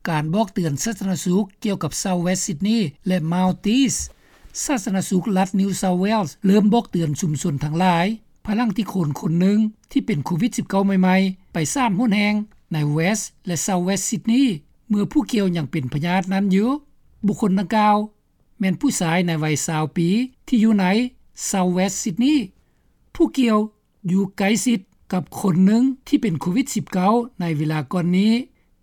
ການບອກເຕືອນສາທາລະນະສຸກກ່ຽວກັບ South West Sydney ແລະ Maldives. ສາທາລະນະສຸກລັດ New South Wales ເລີ່ມບອກເຕືອນຊຸມຊົນທັງຫຼາຍ ພາຍຫຼັງທີ່ຄົນຄົນໜຶ່ງທີ່ເປັນໂຄວິດສິບເກົ້າໃໝ່ໆ ໄປສາມຫົນແຫ່ງໃນ West ແລະ South West Sydney ເມື່ອຜູ້ກ່ຽວຍັງເປັນພະຍາດນັ້ນຢູ່. ບຸກຄົນດັ່ງກ່າວ ແມ່ນຜູ້ຊາຍໃນໄວຊາວປີ ທີ່ຢູ່ໃນ South West Sydney. ຜູ້ກ່ຽວຢູ່ໃກ້ຊິດກັບຄົນໜຶ່ງທີ່ເປັນໂຄວິດສິບເກົ້າໃນເວລາກ່ອນນີ້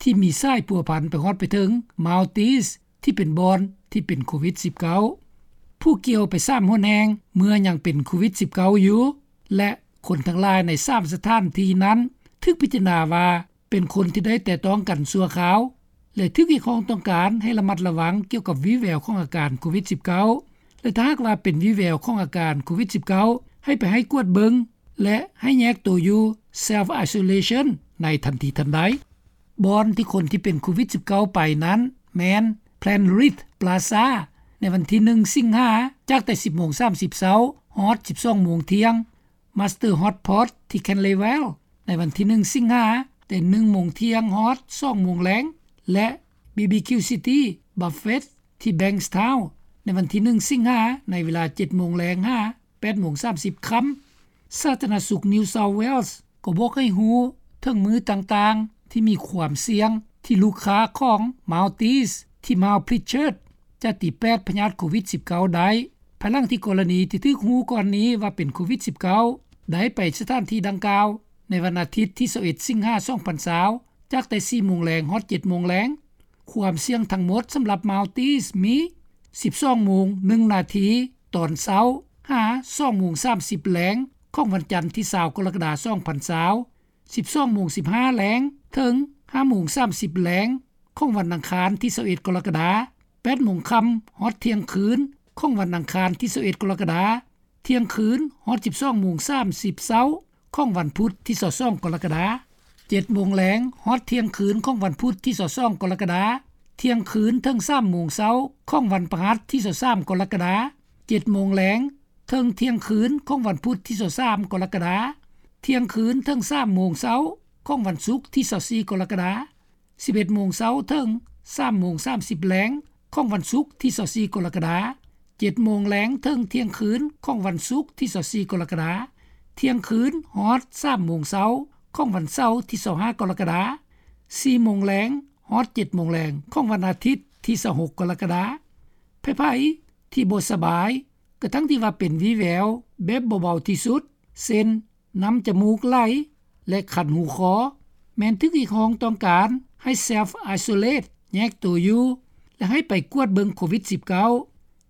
ທີ່ມີສາຍພົວພັນໄປຮອດໄປເຖິງ Maldives ທີ່ເປັນບ່ອນທີ່ເປັນໂຄວິດສິບເກົ້າ. ຜູ້ກ່ຽວໄປສາມຫົນແຫ່ງເມື່ອຍັງເປັນໂຄວິດສິບເກົ້າຢູ່ ແລະ ຄົນທັງຫຼາຍໃນສາມສະຖານທີ່ນັ້ນຖືກພິຈາລະນາວ່າ ເປັນຄົນທີ່ໄດ້ແຕະຕ້ອງກັນຊົ່ວຄາວ ແລະ ຖືກຮຽກຮ້ອງຕ້ອງການໃຫ້ລະມັດລະວັງກ່ຽວກັບວີແວວຂອງອາການໂຄວິດສິບເກົ້າ ແລະ ຖ້າຫາກວ່າເປັນວີແວວຂອງອາການໂຄວິດສິບເກົ້າ ໃຫ້ໄປໃຫ້ກວດເບິ່ງ ແລະ ໃຫ້ແຍກໂຕຢູ່ Self Isolation ໃນທັນທີທັນໃດ. ບ່ອນທີ່ຄົນທີ່ເປັນໂຄວິດສິບເກົ້າໄປນັ້ນແມ່ນ Penrith Plaza ໃນວັນທີໜຶ່ງ ສິງຫາ ຈາກແຕ່ສິບໂມງສາມສິບເຊົ້າ ຮອດສິບສອງໂມງທ່ຽງ, Master Hot Pot ທີ່ Canley Vale ໃນວັນທີໜຶ່ງ ສິງຫາ ແຕ່ໜຶ່ງໂມງທ່ຽງ ຮອດສອງໂມງແລງ ແລະ BBQ City Buffet ທີ່ Bankstown ໃນວັນທີໜຶ່ງ ສິງຫາ ໃນເວລາເຈັດໂມງແລງ ຫາ ແປດໂມງສາມສິບຄ່ຳ. ສາທາລະນະສຸກ New South Wales ກໍບອກໃຫ້ຮູ້ເຖິງມື້ຕ່າງໆທີ່ມີຄວາມສ່ຽງ ທີ່ລູກຄ້າຂອງ Maldives ທີ່ Mount Pritchard ຈະຕີແປດພະຍາດໂຄວິດສິບເກົ້າໄດ້ ພາຍຫຼັງທີ່ກໍລະນີທີ່ຖືກຮູ້ກ່ອນນີ້ວ່າເປັນໂຄວິດສິບເກົ້າ ໄດ້ໄປສະຖານທີ່ດັ່ງກ່າວໃນວັນອາທິດທີຊາວເອັດ ສິງຫາ ສອງພັນຊາວ ຈາກແຕ່ສີ່ໂມງແລງ ຮອດເຈັດໂມງແລງ. ຄວາມສ່ຽງທັງໝົດສຳລັບ Maldives ມີ ສິບສອງໂມງໜຶ່ງນາທີຕອນເຊົ້າ ຫາ ສອງໂມງສາມສິບແລງ ຂອງວັນຈັນທີຊາວ ກໍລະກະດາ ສອງພັນຊາວ, ສິບສອງໂມງສິບຫ້າແລງ ເຖິງ ຫ້າໂມງສາມສິບແລງ ຂອງວັນອັງຄານທີຊາວເອັດ ກໍລະກະດາ, ແປດໂມງຄ່ຳ ຮອດທ່ຽງຄືນ ຂອງວັນອັງຄານທີຊາວເອັດ ກໍລະກະດາ, ທ່ຽງຄືນ ຮອດສິບສອງໂມງສາມສິບເຊົ້າ ຂອງວັນພຸດທີຊາວສອງ ກໍລະກະດາ, ເຈັດໂມງແລງ ຮອດທ່ຽງຄືນ ຂອງວັນພຸດທີຊາວສອງ ກໍລະກະດາ, ທ່ຽງຄືນ ເຖິງສາມໂມງເຊົ້າ ຂອງວັນພະຫັດທີຊາວສາມ ກໍລະກະດາ, ເຈັດໂມງແລງ ເຖິງທ່ຽງຄືນ ຂອງວັນພຸດທີຊາວສາມ ກໍລະກະດາ, ທ່ຽງຄືນ ເຖິງສາມໂມງເຊົ້າ ຂອງວັນສຸກທີຊາວສີ່ ກໍລະກະດາ, ສິບເອັດໂມງເຊົ້າ ເຖິງສາມໂມງສາມສິບແລງ ຂອງວັນສຸກທີຊາວສີ່ ກໍລະກະດາ, ເຈັດໂມງແລງ ເຖິງທ່ຽງຄືນ ຂອງວັນສຸກທີຊາວສີ່ ກໍລະກະດາ, ທ່ຽງຄືນ ຮອດສາມໂມງເຊົ້າ ຂອງວັນເສົາທີຊາວຫ້າ ກໍລະກະດາ, ສີ່ໂມງແລງ ຮອດເຈັດໂມງແລງ ຂອງວັນອາທິດທີຊາວຫົກ ກໍລະກະດາ. ໃຜໆທີ່ບໍ່ສະບາຍ ກະທັງທີ່ວ່າເປັນວີແວວແບບເບົາໆທີ່ສຸດ ເຊັ່ນ ນ້ຳຈະມູກໄຫຼ ແລະ ຄັນຫູຄໍ ແມ່ນຖືກຮຽກຮ້ອງຕ້ອງການໃຫ້ Self Isolate ແຍກໂຕຢູ່ ແລະ ໃຫ້ໄປກວດເບິ່ງໂຄວິດສິບເກົ້າ,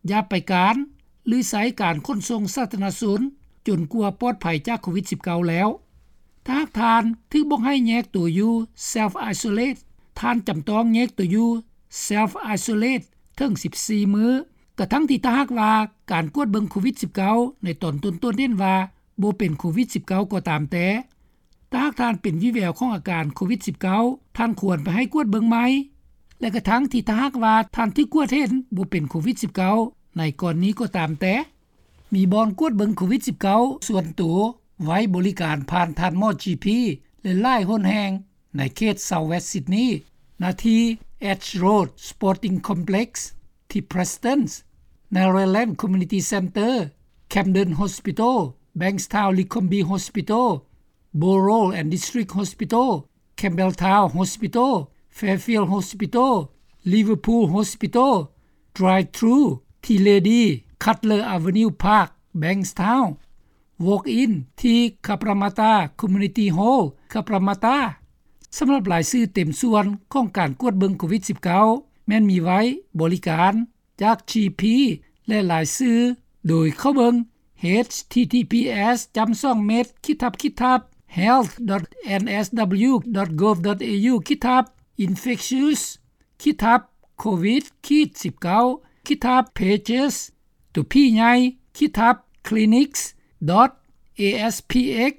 ຢ່າໄປການ ຫຼື ໃຊ້ການຂົນສົ່ງສາທາລະນະຊົນ ຈົນກວ່າປອດໄພຈາກໂຄວິດສິບເກົ້າແລ້ວ. ຖ້າຫາກທ່ານຖືກບອກໃຫ້ແຍກໂຕຢູ່ Self Isolate ທ່ານຈຳຕ້ອງແຍກໂຕຢູ່ Self Isolate ເຖິງສິບສີ່ມື້, ກະທັງທີ່ຖ້າຫາກວ່າການກວດເບິ່ງໂຄວິດສິບເກົ້າ ໃນຕອນຕົ້ນໆເຫັນວ່າບໍ່ເປັນໂຄວິດສິບເກົ້າ ກໍຕາມແຕ່. ຖ້າຫາກທ່ານເປັນວີແວວຂອງອາການໂຄວິດສິບເກົ້າ ທ່ານຄວນໄປໃຫ້ກວດເບິ່ງໃໝ່ ແລະ ກະທັງທີ່ຖ້າຫາກວ່າທ່ານຖືກກວດເຫັນບໍ່ເປັນໂຄວິດສິບເກົ້າ ໃນກໍລະນີກໍຕາມແຕ່. ມີບ່ອນກວດເບິ່ງໂຄວິດສິບເກົ້າ ສ່ວນໂຕໄວ້ບໍລິການຜ່ານທ່ານໝໍ GP ແລະ ຫຼາຍຫົນແຫ່ງໃນເຂດ South West Sydney ນາທີ່ Edge Road Sporting Complex ທີ່ Prestons, Narrabeen Community Centre, Camden Hospital, Bankstown Leconbie Hospital, Borough and District Hospital, Campbelltown Hospital, Fairfield Hospital, Liverpool Hospital, Drive-thru ທີ່ Lady Cutler Avenue Park, Bankstown, Walk-in ທີ່ Cabramatta Community Hall, Cabramatta. ສຳລັບລາຍຊື່ເຕັມສ່ວນຂອງການກວດເບິ່ງໂຄວິດສິບເກົ້າ ແມ່ນມີໄວ້ບໍລິການຈາກ GP ແລະ ລາຍຊື່ໂດຍເຂົ້າເບິ່ງ H T T P S ຈ້ຳສອງເມັດ ຂີດທັບ ຂີດທັບ health dot N S W dot gov dot A U ຂີດທັບ infectious ຂີດທັບ covid ຂີດສິບເກົ້າ ຂີດທັບ pages ຕົວ P ໃຫຍ່ ຂີດທັບ clinics dot A S P X